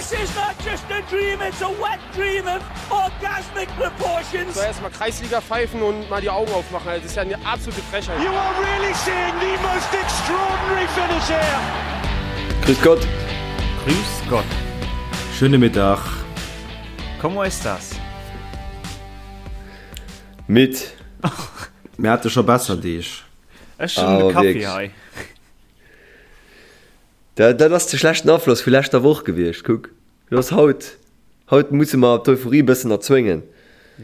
This is not just a dream, it's a wet dream of orgasmic proportions. So erstmal Kreisliga pfeifen und mal die Augen aufmachen. Also, das ist ja eine absolute Frechheit. You are really seeing the most extraordinary finish here. Grüß Gott. Grüß Gott. Schöne Mittag. Como estas? Midd. Mir hate scho besser Deeg. Ech hunn de Kaffi hei. Dat dat ass de schlechten Afloss vu leschter Woch gewiescht. Kuck, lo ass haut. Haut musse mer d'Euphorie e bëssen erzwéngen.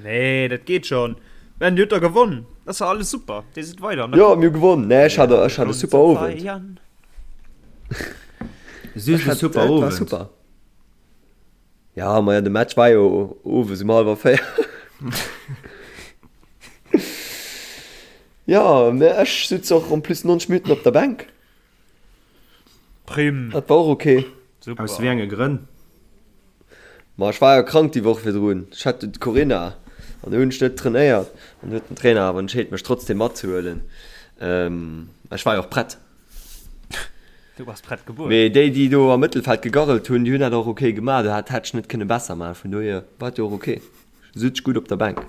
Nee, dat geet schon. Ben, dir hutt der gewonn. Dat ass jo alles super. Dir sidd weider an der Jo, Coupe. mir hu gewonn. Nee, ech hat ech hat e super Owend. Süß Ech e hat, super et war Owend. super. Ja, maja, de Match war jo owes um hallwer 4. Ja, mä ech sutz och en plus 90 Minutten op der Bänk. Prim. Dat war och ok. Super. Aus wéi enge Grënn? Ma ech war jo krank déi Woch virdrun. Ech hat d'Corinna an do hunn ech net trainéiert an du huet den Trainer awer entscheet mech trotzdem matzehuelen. Ech war jo och prett. Du bass prett gebuer. Mee déi déi do am Mëttelfeld gegarrelt hunn, déi hunn dat och ok gemaach. Do hat hätt ech net kënne besser maachen. Vun dohier war et jo och ok. Sutz gutt op der Bänk.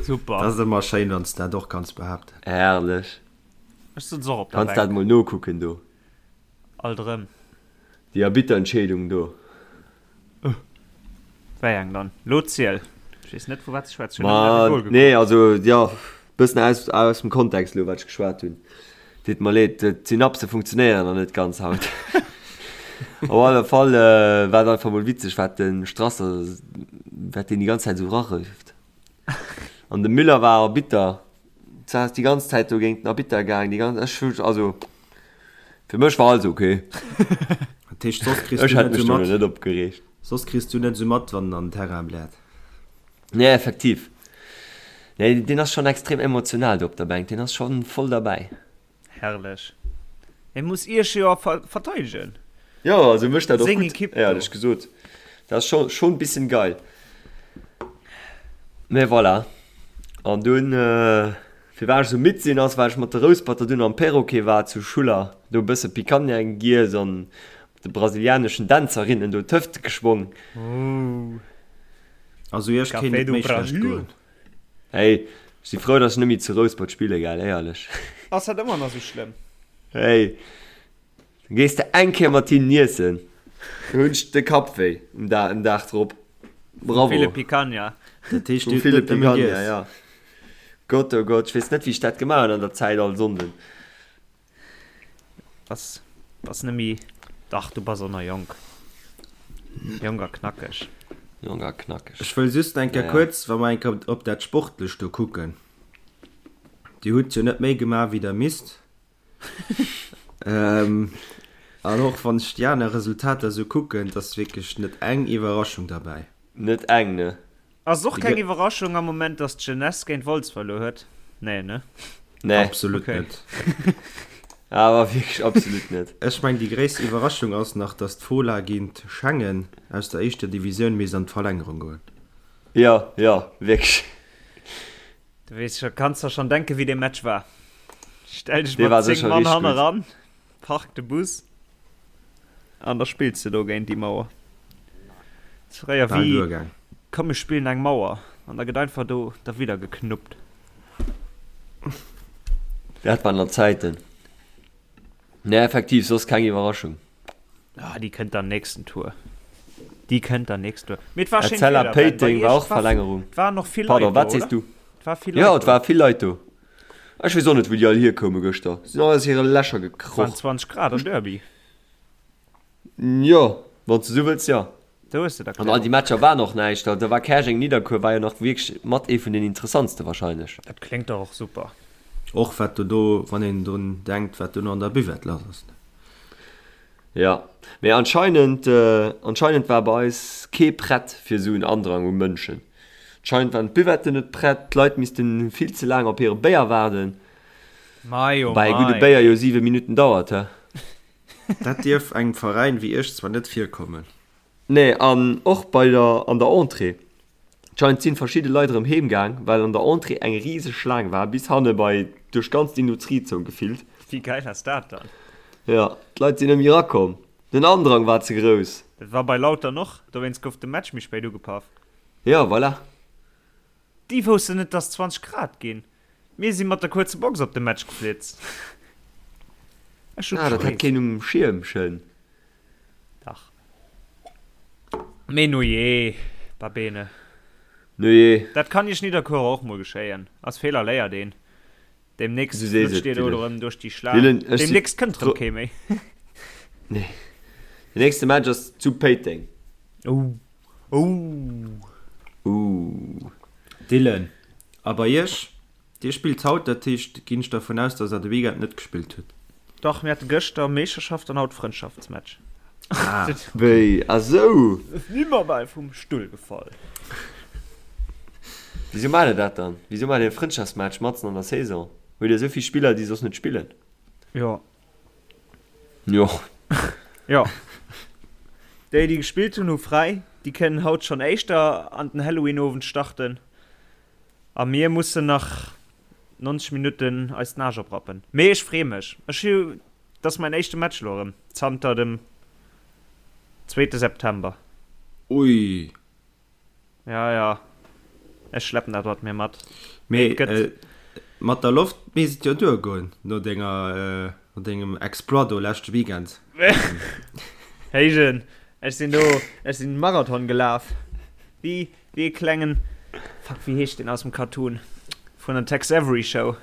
Super. Dat ass ëmmer schéin wann s dat och kanns behaapten. Herrlech. Ech sutz och op der Kanns dat Bänk. mol nokucken do. Alt erëm. Déi Arbitterentscheedung do. Wéi eng dann? Lo ziel! Ech weess net vu wat s de schwätz. Ech hunn nëmmen Ma de Goal nee, gekuckt. also jo, bëssen aus aus dem Kontext elo wat ech geschwat hunn. Deet mer leed, d'Synapse funktionéieren nach net ganz haut. Op alle Fall war et einfach mol witzeg wat de Strasser, wat deen déi ganz Zäit esou rarëft. An de Müller war Arbitter, ass déi ganz Zäit do géint den Arbitter gaang, déi ganz, ech hu, also fir mech war alles ok. Dat heescht, soss kriss Ech du hätt net mech esou do mat, net opgereegt. soss kriss du net esou mat, wann en an den Terrain bläert. Nee, effektiv. Nee, deen ass schonn extrem emotional do op der Bänk, deen ass schonn voll derbäi. Herrlech. Hie muss iech jo verteidegen. Jo, also mécht dat och Seng gutt, Equipe do. éierlech gesot. Dat ass scho schonn bissen geil. Mee voilà. An dunn, firwat ech esou midd sinn, ass well ech mat de Rousperter dunn am Perroquet war zu Schuller, do e bësse Picanha giess an mat de brasilianeschen Dänzerinnen do d'Hëfte geschwong. Also iech kéint Café et do méi schlecht Brasil. goen. Hey, ech si frou, dass ech net méi zu Rouspert spille, gell, éierlech. Ass dat ëmmer nach sou schlëmm? Hey, da gees de eng Kéier mat hinnen iessen, da hunn ech de Kapp wéi um Da, um Dag drop. Vum ville Bravo. Picanha. Dat heescht, Vum dir hutt ville net nëmme Picanha, giess. ja. Gott, oh Gott, ech weess net, wéi ech dat gemaach hunn an der Zäit all Sonnden. Bass, bass nemmi, dach du bass och nach jonk. Jonk a knackeg. Jonk a knackeg. Ech wëll just eng Kéier Naja. kuerz, wa mer eng Kéier op dat Sportlecht do kucken, Dir hutt jo net méi gemaach, wéi Der misst. An och wann ech déi aner Resultater esou kucken, et ass wierklech net eng Iwwerraschung derbäi. Net eng, ne? Ass och keng Iwwerraschung am Moment, dass d'Jeunesse géint Wolz verluer huet? Nee, ne? Nee. Absolut Okay. net. Awer wierklech absolut net. Ech meng déi gréisst Iwwerraschung ass nach, dass d'Fola géint Schengen aus der éischter Divisioun misst an d'Verlängerung goen. Jo, jo, wierklech. Du weess scho, kanns der schon denken, wéi dee Match war. Stell dech Dee mat war 10 sécher Mann richteg hanne gutt. ran, park de Bus an da spills de do géint déi Mauer. Ass fréier Bal wéi, duergaang. komm mir spillen eng Mauer an da gëtt einfach do derwidder geknuppt. Dat waren nach Zäiten. Nee, effektiv, soss keng Iwwerraschung. Ah, déi kënnt dann nächsten Tour. Déi kënnt dann nächsten Tour. Mee et war schéint Etzella Wieder, Ben. Bei Péiteng war iech och war, Verlängerung. et waren och vill Leit Pardon, do, wat sees oder? du? Et war vill Jo, Leit et do. war vill Leit do. Ech weess och net, wou déi all hierkoume gëschter. Sinn all aus hire Lächer Et waren gekroch. 20 Grad am Derby. Jo, wann s de esou wëlls, jo. Do hues de An all déi d'Erklärung. Matcher waren och näischt. Da war Käerjeng-Nidderkuer war jo nach wierklech mat ee vun den interessantste wahrscheinlech. Dat kléngt dach och super. Och wat do do, wann een drun denkt, wat dono an der Buvette lass ass. Jo, mee anscheinend, anscheinend war bei eis kee prett fir esou en Andrang u Mënschen. Anscheinend waren d'Buvetten net prett, d'Leit missten vill ze laang op hire Béier waarden. Mei oh Woubäi e gudde mei. Béier jo 7 Minutten dauert, he? Dat dierf engem Veräin wéi Esch zwar net virkommen. Nee, an och bei der an der Entrée. Anscheinend sinn verschidde Leit erëm heem gaang, well an der Entrée eng riseg Schlaang war, bis hanne bei duerch ganz d'Industriezon gefillt. Wéi geil ass dat dann? Jo, d'Leit sinn net méi erakomm. Den Andrang war ze grouss. Dat war bei Lautern och, dowéinst gouf de Match méi spéit ugepaff. Jo, voilà. Déi woussten net dass 20 Grad ginn. Mir si mat der kuerze Box op de Match geflitzt. Ech hu Ah, dat hat keen um Schierm, schön. Dach. Mee nujee, va bene. Nujee. Dat kann Iech Nidderkuerer och mol geschéien. Aus Feeler léiert een. Demnächst Du sees flutscht et, dir do Dylan. erëm duerch déi Schlaang. Dylan, ech si Demnächst kënnt erëm fro. kee méi. Nee. Den nächste Match ass zu Péiteng. Oh. Oh. Ooh. Dylan, a bei iech? Dir spillt haut, dat heescht, ginn ech dervun aus, dass der de Weekend net gespillt hutt? Dach, mir hate gëschter Meeschterschaft an haut Frëndschaftsmatch. Ah. Wéi? Ah sou! Si mer bal vum Stull gefall. Wisou maacht der dat dann? Wisou maacht dir e Frëndschaftsmatch matzen an der Saison? Hutt dir esou vill Spiller, déi soss net spillen? Jo. Jo. Jo. Déi, déi gespillt hunn, hu fräi. Déi kënnen haut schonn éischter an den Halloween-Owend starten. A mir mussen nach 90 Minutten eis den Aarsch oprappen. Mee ech freeë mech. Ech hu, dat ass mäin éischte Match elo erëm zanter dem zweete September. Ui. Ja, ja. Ech schleppen dat mat mir mat. Mee et gëtt. Mat der Loft misst et jo duergoen, no denger, no dengem Exploit do leschte Weekend. Héijen, ech sinn do, ech sinn Marathon gelaf. Wéi, wéi e klengen, fuck, wéi heescht deen aus dem Cartoon vun der Tex Avery Show?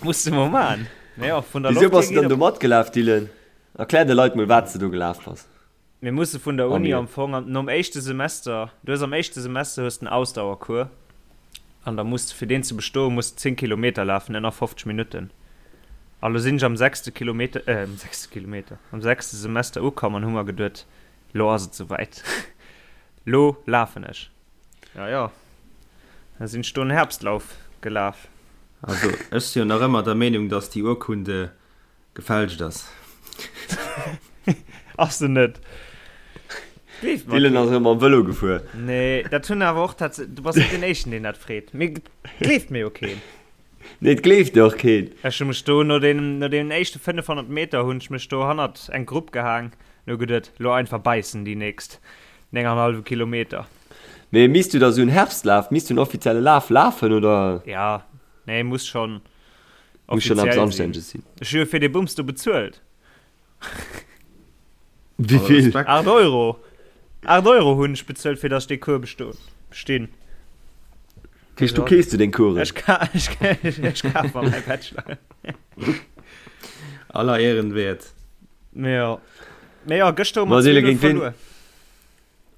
Muss de mol man. Mee jo, vun der Wisou Loft bass hier de geet dann do op. matgelaf, Dylan? Erklär de Leit mol, wat s de do gelaf bass. Mir musse vun der A Uni mir. am Fong an nom éischte Semester, du hues am éischte Semester hues den Ausdauercours an da muss de fir deen ze bestoen muss de 10 Kilometer lafen ënner 50 Minutten. A lo sinn ech am sechste Kilometer, äh am sechste Kilometer, am sechste Semester ukomm an hu mer geduet, lo ass et souwäit, lo lafen ech. Ja jo, da sinn ech do en Herbstlauf gelaf. Also ech si jo nach ëmmer der Meenung, dass déi Urkunde gefälscht ass. Ass se net. Gleeft mer Dylan keen. ass erëm mam Vëlo gefuer. Nee, dat hunn awer och tats-, du bass net deen éischten deen dat freet. Mee et gleeft mir jo keen. Nee, et gleeft dir och keen. Ech hu mech do no deenen, no deenen éischte 500 Meter hunn ech mech do hannert eng Grupp gehaang an hu geduet, lo einfach bäissen déi nächst 9,5 Kilometer. Mee misst du da sou en Herbstlaf, misst du en offizielle Laf lafen oder? Ja, nee, muss schon Muss schon eppes offiziell sinn. Anstänneges sinn. Ech hu jo fir dee Bums do bezuelt. Wéi vill? Respekt. 8 Euro! 8 Euro hunn ech bezuelt, fir datt ech dee Cours besto, bestinn. Dat heescht, du keefs du deng Coursen? Ech ka, ech, ech kaf mer mäi Bachelor. Aller Ehren wert. Mee jo. Mee jo, gëschter hu mer Ma Sele, 2-0 géint ween? verluer.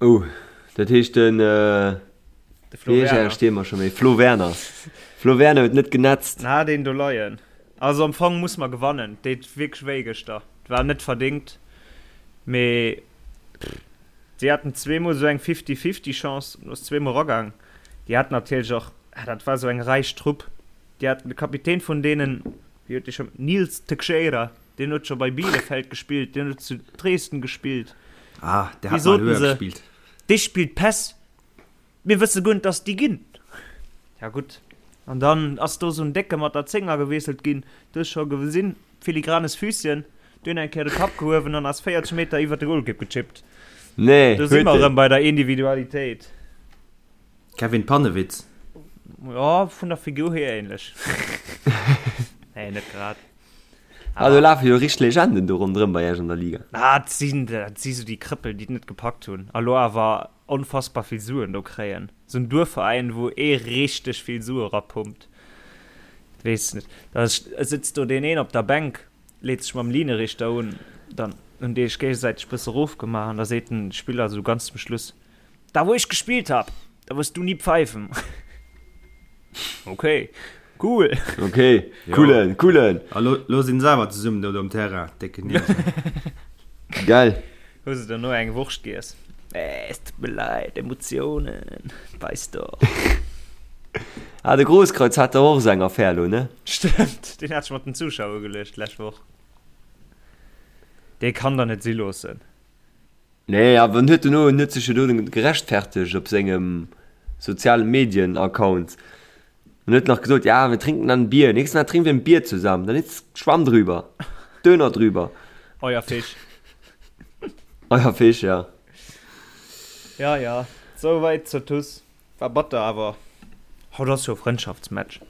Oh, dat heescht den, De Flo wéi heescht Werner. äre Stiermer scho méi? Flo Werner. Flo Werner huet net genetzt. Na, deen do leien. Also am Fong muss mer gewannen. Deet wierklech wéi gëschter. Et war net verdingt, mee si haten zweemol esou eng Fifty-Fifty Chance, do ass zweemol eragaang. Déi haten natierlech och, ah dat war esou eng räich Trupp, déi haten de Kapitän vun deenen, wéi huet dee scho, Nils Teixeira, deen huet scho bei Bielefeld gespillt, deen huet zu Dresden gespillt. Ah, der Wéi hat mal soten höher se, gespielt. Dee spillt Päss, mir wësse guer net, dass déi ginn. Ja gutt, an dann ass do esou en Décke mat der Zénger gewiesselt ginn, du hues scho gesinn, filigranes Füßchen, du hunn eng Kéier de Kapp gehuewen an ass 40 Meter iwwer de Golkipp gechippt. Nee, Do si huet mer en. erëm bei der Individualitéit. Kevin Pannewitz. Jo, vun der Figur hier ähnlech. Nee, net grad. Ah, do lafe jo richteg Legenden do ronderëm bei iech an der Liga. Ah, dat sinn, dat si sou déi Krëppel, déi et net gepackt hunn a lo awer onfassbar vill Suen do kréien. Sou en Duerfveräin, wou ee richteg vill Sue rapumpt. Weess net. Da sëtzt do deen een op der Bänk, leet sech mam Linierichter un, dann hunn déi sech géigesäiteg bësse rofgemaach an da seet den Spiller sou ganz zum Schluss, Da wou ech gespillt hab, da wirst du nie pfeifen. Okay, cool. Okay, coolen, coolen. A lo, lo sinn se awer zesummen do um Terrain, décken Nieser. Geil. Hu se dono eng Wurscht giess? Eh, es tut mir leid, Emotionen, weißt doch. Ah, de Grosskreutz hat der och esou eng Affär lo, ne? Stëmmt, deen hat sech mat den Zuschauer ugeluecht d'lescht Woch. Dee kann der net si loossen. Nee, awer en huet dono, en huet sech jo do gerechtfertegt op sengem soziale Medien Account. Und huet nach gesot, ja, wir trinken dann ein Bier. Nächstes Mal trinken wir ein Bier zusammen. Dann ist Schwamm drüber. Döner drüber. Euer Fisch. Euer Fisch, ja. Ja, ja. Souwäit zur TuS. War batter, awer haut ass jo Frëndschaftsmatch.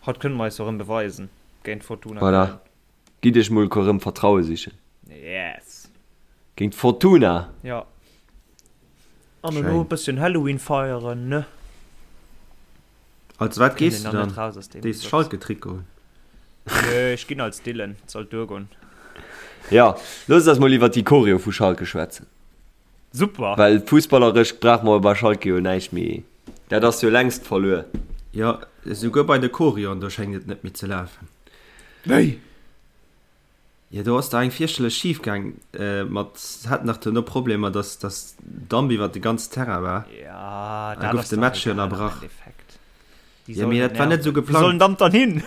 Haut kënne mer eis jo erëm beweisen géint Fortuna Voilà. Köln. Gitt iech mol erëm Vertraue sichen. Yes. Géint Fortuna. Ja. An elo e bësschen Halloween feieren, ne? Als wat gees du dann? Dees Schalke-Trikot un? Nö, ech ginn als Dylan, et sollt duergoen. Jo, loosst eis mol iwwert déi Choreo vu Schalke schwätzen. Super! Well fussballeresch brauche mer bei Schalke jo näischt méi. Dat ass jo längst verluer. Jo, esouguer bei de Choreoen, do schéngt et net méi ze lafen. Wéi? Jo, do ass der eng fierchterlech schif gaang mat, se haten nach duerno Problemer, dass dass Damp iwwert de ganzen Terrain war. Ja, Da dat gouf ass de dach Match jo egal am ënnerbrach. Endeffekt. Déi Jo, sollen mee net dat war net nerven. esou Wou soll den geplangt. Damp dann hin?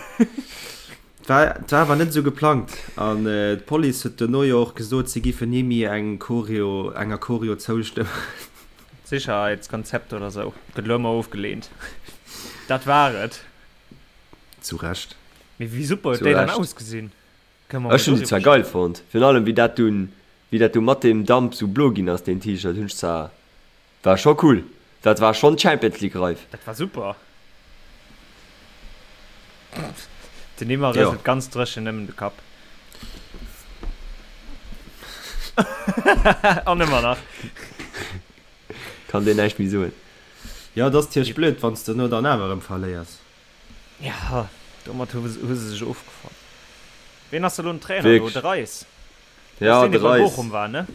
Et war, et war awer net esou geplangt. An d'Police huet duerno jo och gesot, si giffen ni méi eng Choreo, enger Choreo zoustëmmen. Sicherheitskonzept oder sou gëtt elo ëmmer ofgeleent. Dat war et. Zu Recht. Mee wéi super huet Zu déi dann Recht. ausgesinn? Kënne mer Ech mol hunn déi doriwwer zwar geil schwätzen. fonnt, virun allem wéi dat dunn, wéi dat du mat deem Damp sou blo ginn ass, deen T-Shirt hunn ech zwar, war scho cool, dat war schonn Champions League reif. Dat war super. Den Neymar Jo. rëselt ganz dréchen nëmmen de Kapp. An ëmmer nach. Kann deen näischt méi soen. Jo, et ass tierch blöd, wann s de no dann awer erëm verléiers. Ja, domat hu hu se sech ofgefonnt. Ween ass elo den Trainer do? Wierklech. De Reis? Dat ass Ja, deen, de dee bei Reis. Bochum war, ne?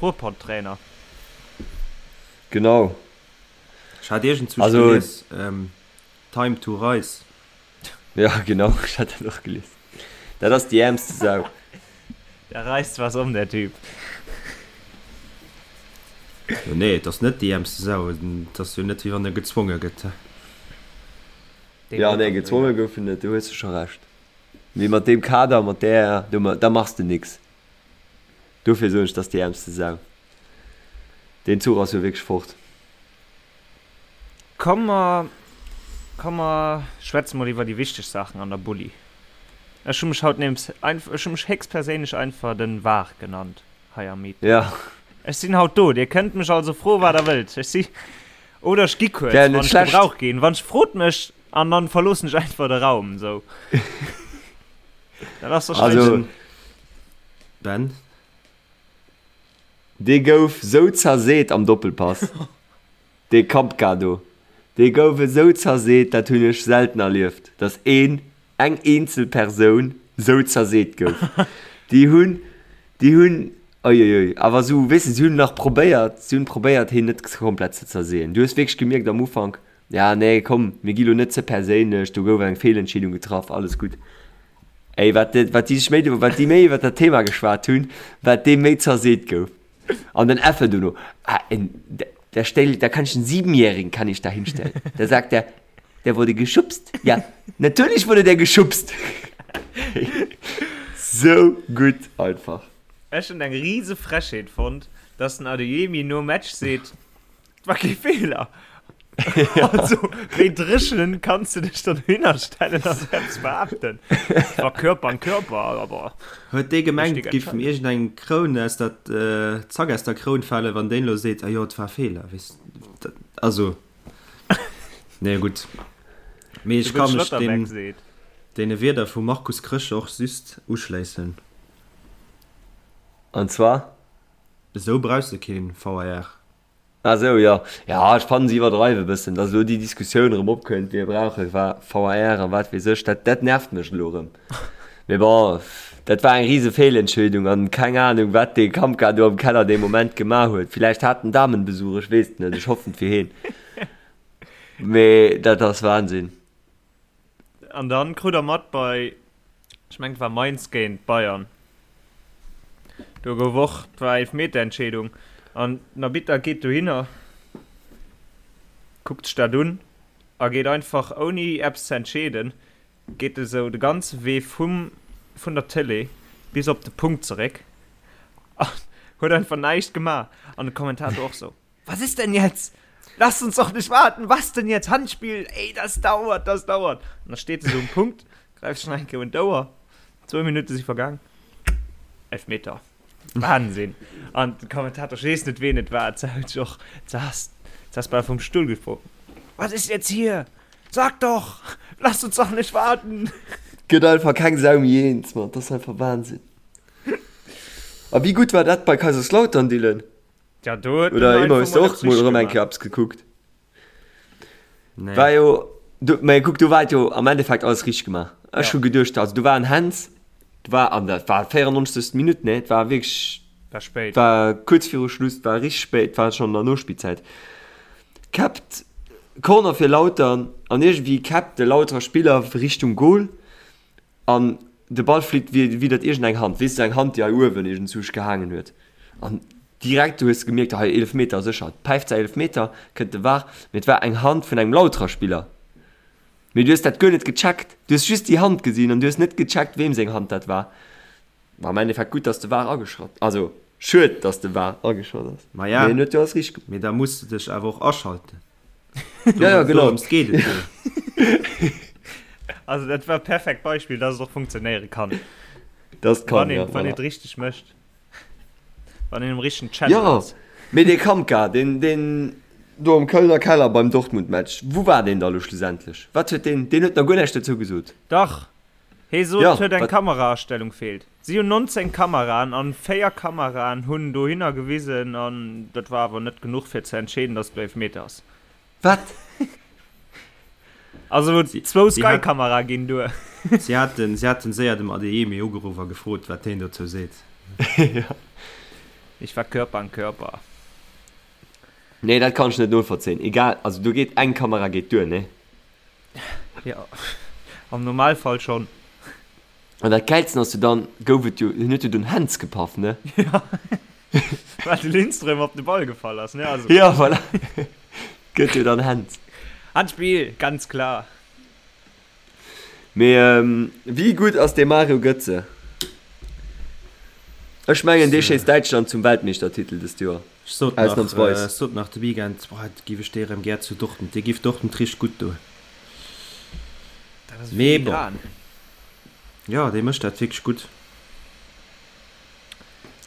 Ruhrpott-Trainer. Genau. Ech hat iergendzwousch Also- gelies, ähm, Time to Reis. Ja, genau, ech hat dat och gelies. Dat ass déi äermste Sau. Der reisst was om, der Typ. Jo, nee, et ass net déi äermste Sau. Et ass jo net, wéi wann e gezwonge gëtt. Dee Ja, wollt nee, dat gezwonge dohinner. gouf en net, do hues de scho Recht. Mee mat deem Kader, mat där, do, da machs de nix. Dofir soen ech, 't ass déi äermste Sau. Deen Zuch ass jo wierklech fort. Komm mer, komm mer schwätze mol iwwer déi wichteg Saachen an der Bulli. Ech hu mech haut neems einf, ech hu mech héchstperséinlech einfach den Var genannt hei am Meeting. Ja. Ech sinn haut do, dir kënnt mech also froe wat der wëllt. Ech si, oder ech gi kuerz, Wär net wann ech schlecht. gebraucht ginn. Wann ech, frot mech an dann verloossen ech einfach de Raum, sou. Dat ass Also, wahrscheinlech. Ben? Dee gouf sou zerseet am Doppelpass, dee Kampka do, dee gouf esou zerseet, dat hunn ech selten erlieft, datt een, eng eenzel Persoun sou zerseet gouf. Déi hunn, déi hunn, uiuiui, awer sou, weess de, si hunn nach probéiert, si hunn probéiert heen net komplett ze zerseeën. Du hues wierklech gemierkt am Ufank, ja nee, komm, mir gi lo net ze perséinlech, do gouf eng Feelentscheedung getraff, alles gutt. Ey, wat de, wat déi sech méi, wat déi méi iwwer dat Thema geschwat hunn, wat dee méi zerseet gouf. An den Effe dono, ah, en, da stell, da kann ich einen Siebenjährigen kann ich da hinstellen. Da sagt er, der wurde geschubst. Ja, natürlich wurde der geschubst. So gutt einfach. Ech hunn eng riese Frechheet fonnt, dass den Adeyemi nom Match seet, Et war kee Feeler. Also, wéi dréchen kanns du dech dann dohinner stellen a sou eppes behaapten? Et war Körper an Körper, awer Huet dee gemengt, Richtige giff em Entscheidung. iergendeng Kroun aus der, Zack aus der Kroun falen, wann deen elo seet, ah jo, et war e Feeler, weess de, also, nee, gutt. Mee ech De ka mech Schlotterbeck deem, seet. deene Wierder vum Markus Krösche och just uschléissen. An zwar? Esou brauchs de keen VAR. Ah sou, jo. Jo, ech fannen se iwwerdreiwe bëssen, dass elo déi Diskussioun erëm opkënnt, mir brauche VAR an wat weess ech. Dat, dat nervt mech elo erëm. Mee bon, dat war eng rise Feelentscheedung an keng Ahnung, wat dee Kampka do am Keller dee Moment gemaach huet. Villäicht hat en Damenbesuch, ech weess et net, ech hoffen et fir heen. Mee dat ass Wahnsinn. An dann krut der mat bei, ech mengen et war Mainz géint Bayern, do gouf och, et war Eelfmeterentscheedung an den Arbitter geet dohinner, kuckt sech dat un a geet einfach ouni eppes ze entscheeden, geet e sou de ganze Wee vum, vun der Tëlee bis op de Punkt zeréck an huet einfach näischt gemaach an de Kommentator och sou, Was ist denn jetzt? Lasst uns doch nicht warten, was denn jetzt? Handspiel, ey, das dauert, das dauert. An da steet se sou um Punkt, gräift sech nach eng Kéier un d'Ouer, zwou Minutte si vergaang, Elfmeter. Wahnsinn! An den Kommentator, ech weess net ween et war, sot och, sass, sass bal vum Stull gefall, Was ist jetzt hier? Sag doch! Lasst uns doch nicht warten! Gëtt einfach keng Sau méi eens, Mann, dat ass einfach Wahnsinn. A wéi gutt war dat bei Kaiserslautern, Dylan? Ja, do huet Oder en ëmmer einfach hues de mol och eppes mol richteg erëm eng gemaach. Kéier eppes gekuckt? Nee. War jo, do, mä kuck, do war et jo am Endeffekt alles richteg gemaach. Ech Ja. hu geduecht, also do war en Hands, do war, an dat war 94. Minutt, ne, et war wierklech, War spéit. war kuerz viru Schluss, et war richteg spéit, et war schonn an der Nospillzäit. Käppt, Corner fir Lautern an iergendwéi käppt de Lauterer Spiller Richtung Goal An de Ball flitt widdert iergend eng Hand, weess de, eng Hand, déi hei uewen iergendzwousch gehaangen huet. An direkt, du hues gemierkt, hei Eelefmeter, sécher, päift säi Eelefmeter, kënnt de var, mee et war eng Hand vun engem Lauterer Spiller. Mee du hues dat guer net gecheckt, du hues just déi Hand gesinn an du hues net gecheckt, weem seng Hand dat war. War am Endeffekt gutt, dass de var ageschratt, also schued, dass de var ageschratt ass, Maja, mee en huet jo alles richteg gemaach. mee da muss de dech awer och aschalten. Ja, ja, genau. Dorëms geet et jo. Also dat war perfekt Beispill, dass et och funktionéiere kann. Das kann, Wann een, ja, wann een voilà. et richteg mécht. Wann een um richtegen Channel Ja, ass. mee dee Kamka, deen, deen do am Kölner Keller beim Dortmund-Match, wou war deen da lo schlussendlech? Wat huet deen, deen huet nach guer näischt dozou gesot. Dach, hee sot, Ja, et huet eng wat? Kameraastellung feelt. Si hunn 19 Kameraen an 4 Kameraen hunn dohinner gewisen an dat war awer net genuch fir ze entscheeden, dass et Eelfmeter ass. Wat? Also zwou Si hat- Sky-Kamerae ginn duer. Si haten, si haten séier dem Adeyemi ugeruff a gefrot, wat heen dozou seet. Ich war Körper an Körper. Nee, dat kann ech net novollzéien. Egal, also do geet eng Kamera geet duer, nee? Jo, am Normalfall schonn. An dat Gäilsten ass jo dann, gouf et jo, hien huet jo dunn Händs gepaff, ne? Ja, well de Lindström op de Ball gefall ass, ne? Also. Ja, voilà. Gëtt jo dann Händs. Handspill, ganz klar. Mee wéi gutt ass dee Mario Götze? Ech mengen, dee schéisst Däitschland zum Weltmeeschtertitel dëst Joer. Ech sot nach, Ausnamsweis. ech sot nach de Weekend, boah, giff ech dee rem gär zu Dortmund, dee giff Dortmund richteg gutt doen. Dat ass Mee bon. filigran. Jo, dee mécht dat wierklech gutt.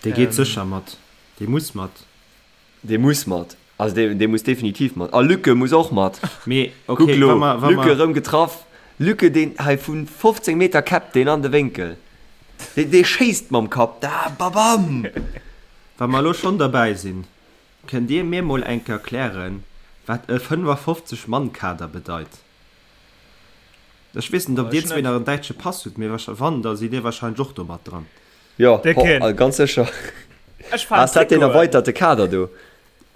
Dee geet Ähm. sécher mat. Dee muss mat. Dee muss mat. Also dee, dee muss definitiv mat. A Lücke muss och mat. Mee Kuck okay, lo, wa mer, wa Lücke mer, rëm getraff. Lücke, deen hei vu 15 Meter käppt deen an de Wénkel. Dee, dee schéisst mam Kapp da, babam! wa mer elo schonn derbäi sinn, kënnt Dir mir mol eng Kéier erklären, wat e 55 Mann Kader bedeit? Ech weess net, ob Dir zwee nach en däitsche Pass hutt, mee wann, da sidd Dir wahrscheinlech och do mat dran. Jo, ho, ganz sécher. Ass dat deen erweiterte Kader do?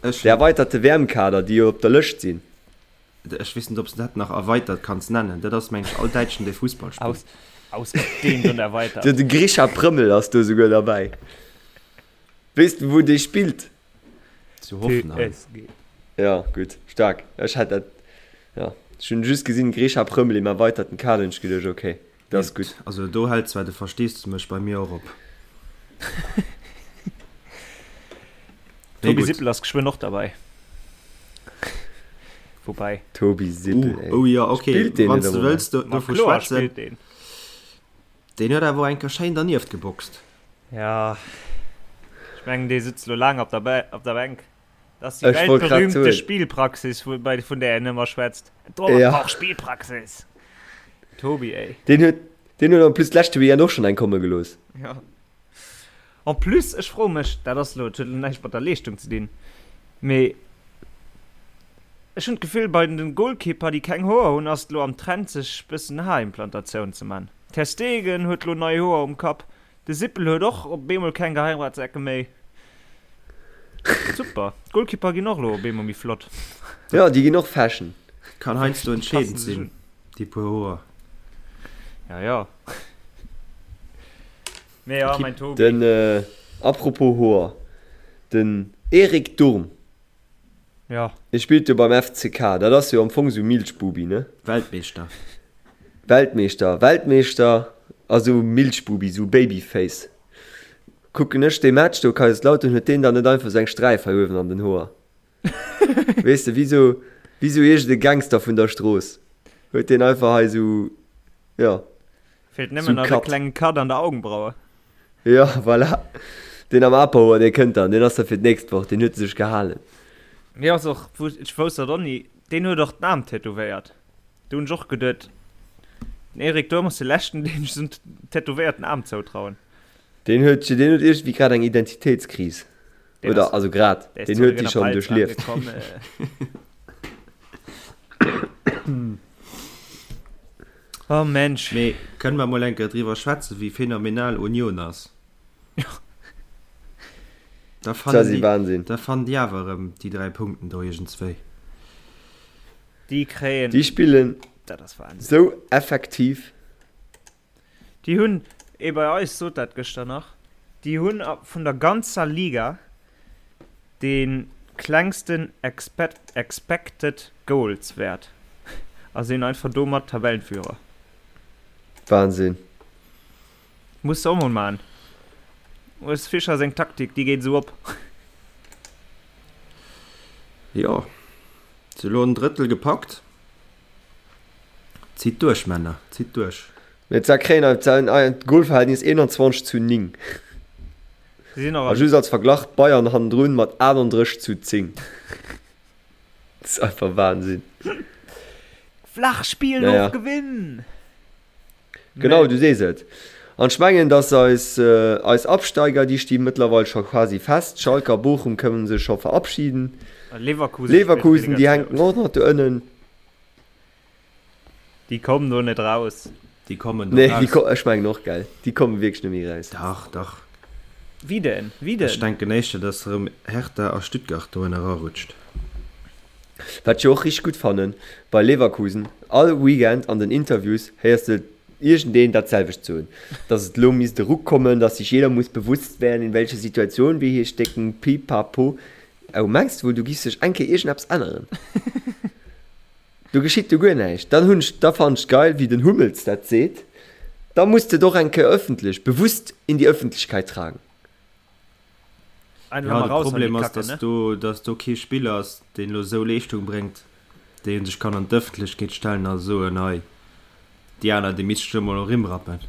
Dee erweiterte WM-Kader, déi jo op der Lëscht sinn? Ech weess net, ob s de dat nach erweitert kanns nennen. Dat ass, meng ech, all Däitschen, dee Fussball spillt. Ausgedehnt und erweitert. De Grischa Prömmel ass do souguer derbäi. Weess de, wou dee spillt? Zu Hoffenheim. TSG. Ja, gutt, staark. Ech hätt dat, ja, ech hunn just gesinn, Grisha Prömmel im erweiterten Kader, hunn ech geduecht, okay, dat ass gutt. Also do hält zwar de Versteesdemech bei mir och op. Tobi gutt. Sippel ass geschwënn och derbäi. Woubäi. Tobi Sippel, ey. Oh jo, okay, Spillt deen wann net s de am Moment? wëlls do, Ma dovu kloer schwätzen. spillt deen. Deen huet awer och eng Kéier schéin dernieft geboxt. Ja, ech mengen dee sëtzt lo laang op der, Bä op der Bänk. Dat ass déi Ech wollt grad weltberühmte soen. Spielpraxis, vu, bei, vun där en ëmmer schwätzt. Torwart Ja. brauch Spielpraxis. Tobi, ey. Deen huet, deen huet en plus d'leschte Weekend och schonn eng komme gelooss. Ja. En plus, ech froe mech, dat ass lo, dat huet lo näischt mat der Leeschtung ze dinn, mee ech hunn d'Gefill, bei den Goalkeeper, déi keng Hoer hunn, ass et lo am Trend, sech bëssen Haarimplantatioun ze man. Ter Stegen huet lo nei Hoer um Kapp, De Sippel huet och op eemol keng Geheimratsecken méi. Super, d'Goalkeeper ginn och elo op eemol méi flott. Jo, déi ginn och Fashion. Kann heiansdo entscheedend Passen sech sinn, un. déi puer Hoer. Ja, ja. Mee ja, mäin Tobi. Den, apropos Hoer, den Erik Durm, Ja. dee spillt jo beim FCK, dat ass jo am Fong esou Milchbubi, ne? Weltmeeschter. Weltmeeschter, Weltmeeschter a sou Milchbubi, sou Babyface. Kucken ech dee Match do, Kaiserslautern, huet deen dann net einfach sou eng Sträif hei uewen an den Hoer? Weess de, wéi sou, wéi sou iergend e Gangster vun der Strooss huet deen einfach hei sou, jo. Feelt nëmmen nach e klengen Cut an der Augenbraue. Jo, voilà. Deen am Aperhoer, dee kënnt dann. Deen ass da fir d'nächst Woch. Deen huet e sech gehalen. Mir ass och, ech wousst dat och ni, deen huet och den Aarm tätowéiert. Do hunn ech och geduet, den Eric Durm ass de leschten, deem ech esou en tätowéierten Aarm zoutrauen. Deen huet, deen huet iergendwéi grad eng Identitéitskris. Oder, also grad, deen huet déi schonn duerchlieft. Oh Mensch. Mee kënne mer mol eng Kéier driwwer schwätzen, wéi phänomenal Union ass? Da fannen déi, Wahnsinn. da fannen déi awer erëm déi 3 Punkten do iergendswéi. Déi kréien. Déi spillen Dat ass Wahnsinn. sou effektiv. Déi hunn, ee bei eis sot dat gëschter nach, déi hunn vun der ganzer Liga dee klengsten Expected Goals Wäert a sinn einfach domat Tabellenführer. Wahnsinn. Muss de och mol man. Urs Fischer seng Taktik, déi geet esou op. Jo, se elo en Drëttel gepackt. Zitt duerch Männer, zitt duerch. Mee d'Sa kréien ein Golverhältnis 21 zu 9. A just als Verglach, Bayern hannendrun mat 38 zu 10. Dat ass einfach Wahnsinn. Flach spillen Naja. of gewinn! Genau, du sees et. An ech mengen, dass eis, eis Absteiger, déi sti mëttlerweil scho quasi fest. Schalke a Bochum kënnen sech scho verabschieden. Leverkusen spillt Leverkusen, déi Relegation. hänken och nach do ënnen. Déi kommen do net raus. Déi kommen do Nee, déi raus. ko ech mengen och, gell. Déi komme wierklech net méi raus. Dach, dach. Wie denn? Wie Ech denn? denken éischter, dass erëm Hertha a Stuttgart do ënner erarutscht. Wat ech jo och richteg gutt fannen bei Leverkusen, all Weekend an den Interviews héiers de iergendeen dat selwecht soen, dass et elo misst e Ruck kommen, dass sich jeder muss bewusst werden, in welcher Situation wir hier stecken, pipapo. Oh, mengs de wuel, do giff sech eng Kéier iergendeppes änneren? Do geschitt jo guer näischt. Dann hunn ech, da fannen ech geil, wéi den Hummels dat seet, da muss de et och eng Kéier öffentlech, bewusst in die Öffentlichkeit tragen. Einfach Ja, mal de raus an die Problem ass, Kacke, dass ne? do, dass do kee Spiller ass, deen elo esou Leeschtung bréngt, dee sech kann an d'Ëffentlechkeet stellen a soen, hei, déi aner, déi misst ech elo mol erim rappen.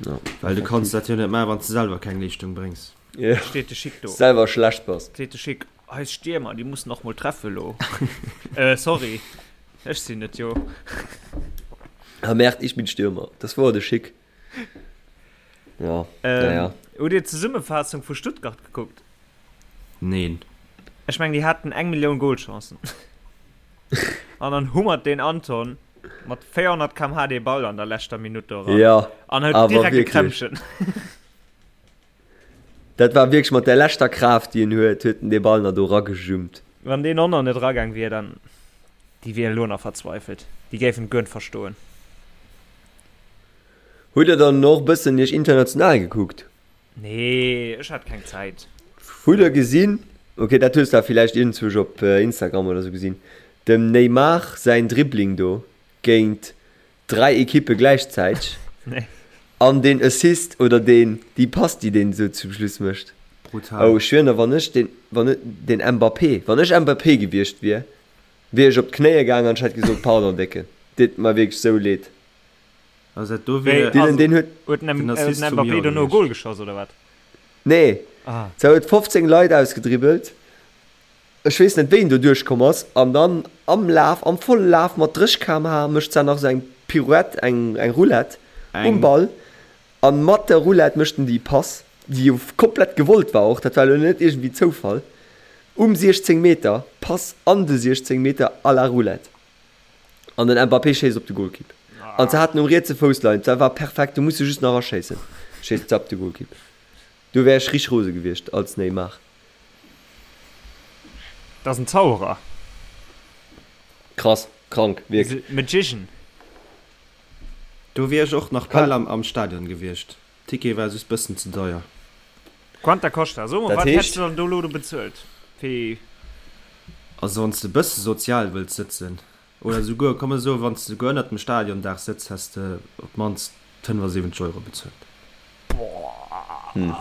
Ja, Well du kanns effektiv. dat jo net maachen, wann s de selwer keng Leeschtung bréngs. Ja, Steet de Schick do. selwer schlecht bass. Seet de Schick, Eis Stiermer, déi mussen och mol treffe lo. Äh, sorry, ech sinn et jo. Ah merde, ich bin Stürmer. Das war de Schick. Ja, Ähm, naja. Hutt Dir d'Zesummefaassung vu Stuttgart gekuckt? Neen. Ech mengen, déi haten eng Millioun Golchancen. An dann hummert deen Anton mat 400 km/h dee Ball an der leschter Minutt do eran. Ja, An huet awer direkt e wierklech. Krämpchen. Dat war wierklech mat der leschter Kraaft, déi en huet, huet en dee Ball nach do eragejummt. Wann deen och nach net eragaang wier, dann, déi wieren elo nach verzweifelt. Déi géifen et guer net verstoen. Hutt der dann och bëssen iech international gekuckt? Nee, ech hat keng Zäit. Hutt der gesinn, ok dat hues der villäicht iergendzwousch op Instagram oder sou gesinn, dem Neymar säin Dribbling do géint 3 Ekippe gläichzäiteg Nee. an deen Assist oder deen déi Pass déi deen esou zum Schluss mécht. Brutal. Oh ech schwieren der wann ech deen wann deen Mbappé wann ech Mbappé gewiescht wier, wier ech op d'Knéie gaang an ech hätt gesot pardon Décken, deet mer wierklech sou leed. Also dat do Wéi, wier Dylan also deen huet huet den den Assist vum Mbappé Joer dono e gewiescht. Goal geschoss oder wat? Nee, Ah. se huet 15 Leit ausgedribbelt. Ech weess net wéi en do duerchkomm ass an dann am Laf, am volle Laf mat 30 km/h mécht s'an nach esou eng Pirouette, eng eng Roulette um Eng. Ball an mat der Roulette mécht en déi Pass, déi jo komplett gewollt war och, dat war elo net iergendwéi Zoufall, um 16 Meter, Pass an de 16 Meter à la Roulette an den Mbappé schéisst op de Golkipp an se haten um rietse Fouss leien, dat war perfekt, do muss de just nach aschéissen, schéisst se op de Golkipp. Do wär ech richteg rose gewiescht als Neymar. Dat ass en Zauberer. Krass, krank, wierklech. Magician. Do wier ech och nach Kann. bal am Stadion gewiescht. Ticket war just bëssen ze deier. Quanta costa? So mol, Dat wat hätt's heescht. de dann do lo do bezuelt fir. Also wanns de bësse sozial wëlls sëtzen, oder souguer, komm mer soen, wanns de souguer ënnert dem Stadiondaach sëtz, häss de op d'mannst 75 Euro bezuelt. Hm.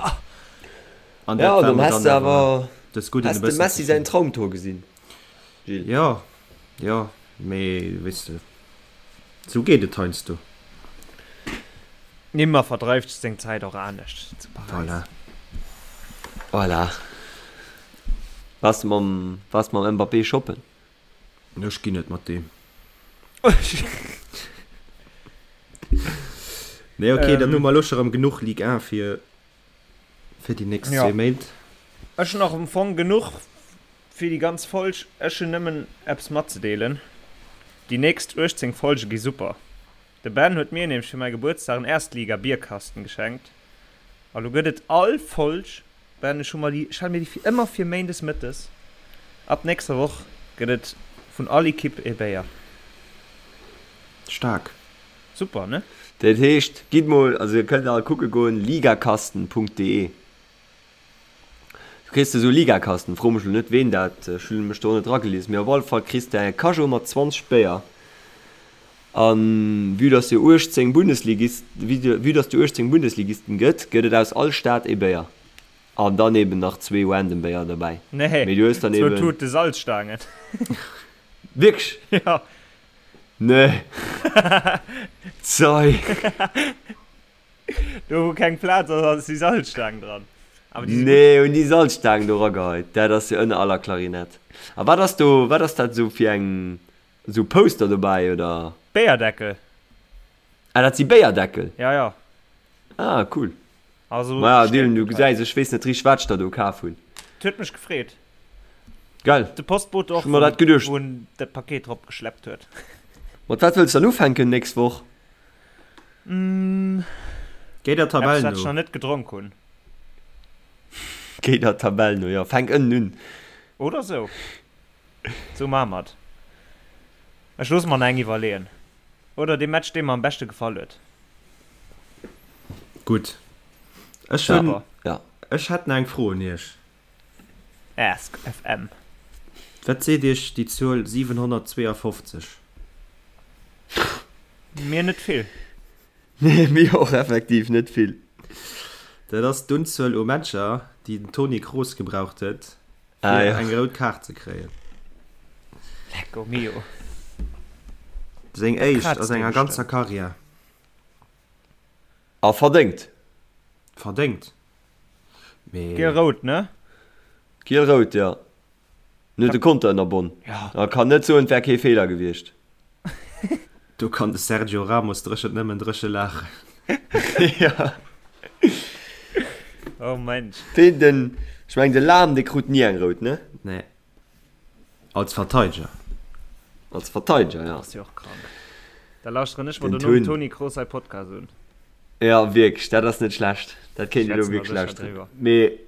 An Ja, dat war dann mer häss dann de awer awer. Dës Gudden e bëssen. Has de Messi säin Traumtor gesinn, Gilles? Jo, jo, mee weess de, sou geet et heiansdo. Nimmer verdreift seng Zäit och anescht zu Paräis. Voilà. Voilà. Waars de mam, waars de mam Mbappé shoppen? Ech ginn net mat deem. Nee, okay, dann hu mer elo scho rëm genuch Ligue 1 fir, fir déi nächst zwee Méint. Ech hunn och am Fong genuch fir déi ganz Folg. Ech hunn nëmmen eppes matzedeelen, Déi nächst 18 Folge gi super. De Ben huet mir nämlech fir mäi Gebuertsdag en Erstliga-Bierkasten geschenkt. A lo gëtt et all Folg, Ben, ech hu mer déi, ech hale mir déi fir ëmmer fir méindes mëttes, ab nächster Woch gëtt et vun all Ekipp ee Béier. Staark. Super, ne? Dat heescht, gitt mol, also dir kënnt all kucke goen, ligakasten.de. Du kriss esou Ligakasten, fro mech lo net ween dat, ech hunn mech do net ragelies, mee op alle Fall kriss de e Cajot mat 20 Béier. A vue dass jo 18 Bundesligist, vue dass jo 18 Bundesligisten gëtt, gëtt et aus all Stad ee Béier. An dann eben nach zwee random Béier derbäi. Nee, Mee du hues dann zwou eben. Tute Salzstaangen. Wierklech? Jo. Nee. Zei. Do wou keng Plaz ass, ass déi Salzstaang dran. Awer déi si gutt. Nee, hunn déi Salzstaang do rageheit. Dat ass jo ënner aller Klarinett. A wat ass do, wat ass dat esou fir eng. Sou Poster dobäi oder? Béierdeckel. Ah dat si Béierdeckel? Ja ja. Ah cool. Also Maja Dylan du gesäis ech weess net richteg wat ech der do kaf hunn. Et huet mech gefreet. Geil. De Postbote och Ech hu mer dat geduecht. wou en dat Paket drop geschleppt huet. Mat wat wëlls dann ufänken nächst Woch? Géi der Tabell Eppes wat ech no. nach net gedronk hunn. Géi der Tabell no, jo. Fänk ënnen un. Oder sou. Sou maache mer et. Ech loosse mer nach eng iwwerleeën. Oder dee Match, dee mer am beschte gefall huet. Gutt. Ech hunn, ech hätt nach eng Fro un Iech. Ask FM. Wat seet Iech déi Zuel 752? Mir net vill. Nee, mir och effektiv net vill. Dat ass d'Unzuel u Matcher, déi den Toni Kroos gebraucht huet, fir eng rout Kaart ze kréien. Lecco mio. Seng éischt a senger ganzer Karriär. A verdéngt. Verdéngt, mee. Giel-rout, ne? Giel-rout, jo. En huet de Konter ënnerbonn. A kann net soen, et wär kee Feeler gewiescht. Do kann de Sergio Ramos dréchent nëmmen dréche laachen. Jo. Oh Mensch. Deen, den, ech mengen de Lahm, dee krut ni eng rout, ne? Nee. Als Verteideger. Als Verteideger, ja. Ass jo och krank. Da lauschteren ech mer dono dem Toni Kroos säi Podcast un. Ja, wierklech, dat ass net schlecht. Dat kéint een elo wierklech lauschteren. Mee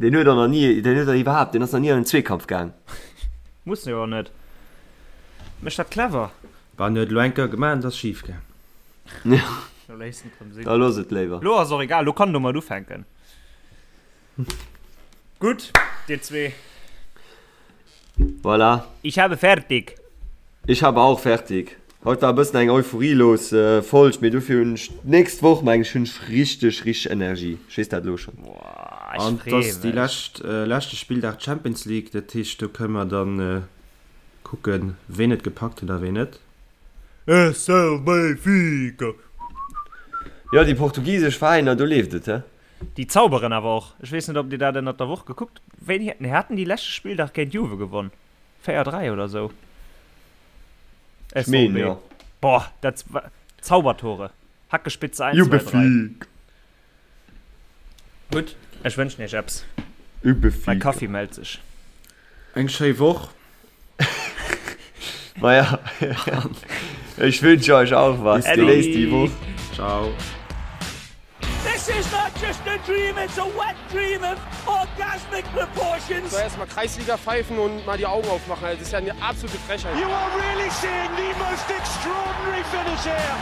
deen huet och nach ni, deen huet och iwwerhaapt, deen ass nach ni an en Zweekampf gaang. Muss jo och net. Mécht dat clever. Bah, en huet elo eng Kéier gemaach an et ass schif gaang. Ja. Lo léisst en et rëm sinn. Da looss et léiwer. Lo ass och egal, lo kann en domat ufänken. Gutt, dir zwee. Voilà. Ich habe fertig. Ich habe auch fertig. Haut war e bëssen eng euphorielos Folg, mee dofir hunn ech d'nächst Woch, meng ech, hunn ech richteg, richteg Energie. Ech weess dat elo schonn. Boah, ech An et freeë ass déi mech. lescht, leschte Spilldag Champions League, dat heescht do kënne mer dann kucken, ween et gepackt huet a ween net. SL Benfica! Jo, déi portugisesch Veräiner, do leeft et, he? Déi zauberen awer och. Ech weess net, ob Dir dat ënnert der Woch gekuckt. Wéini nee, haten déi leschte Spilldag géint Juve gewonn? 4, 3 oder sou? Ech meen, jo. Boah, dat war Zaubertore. Hackespitze 1, 2, 3. Gutt, ech wënschen Iech eppes. Mäi Kaffi mellt sech. Eng schéi Woch. Maja, ech wünsche euch auch was. Genéisst déi Woch. Ciao. This is not just a dream, it's a wet dream of orgasmic proportions. So erstmal Kreisliga pfeifen und mal die Augen aufmachen. Also, das ist ja eine absolute Frechheit. You are really seeing the most extraordinary finish here.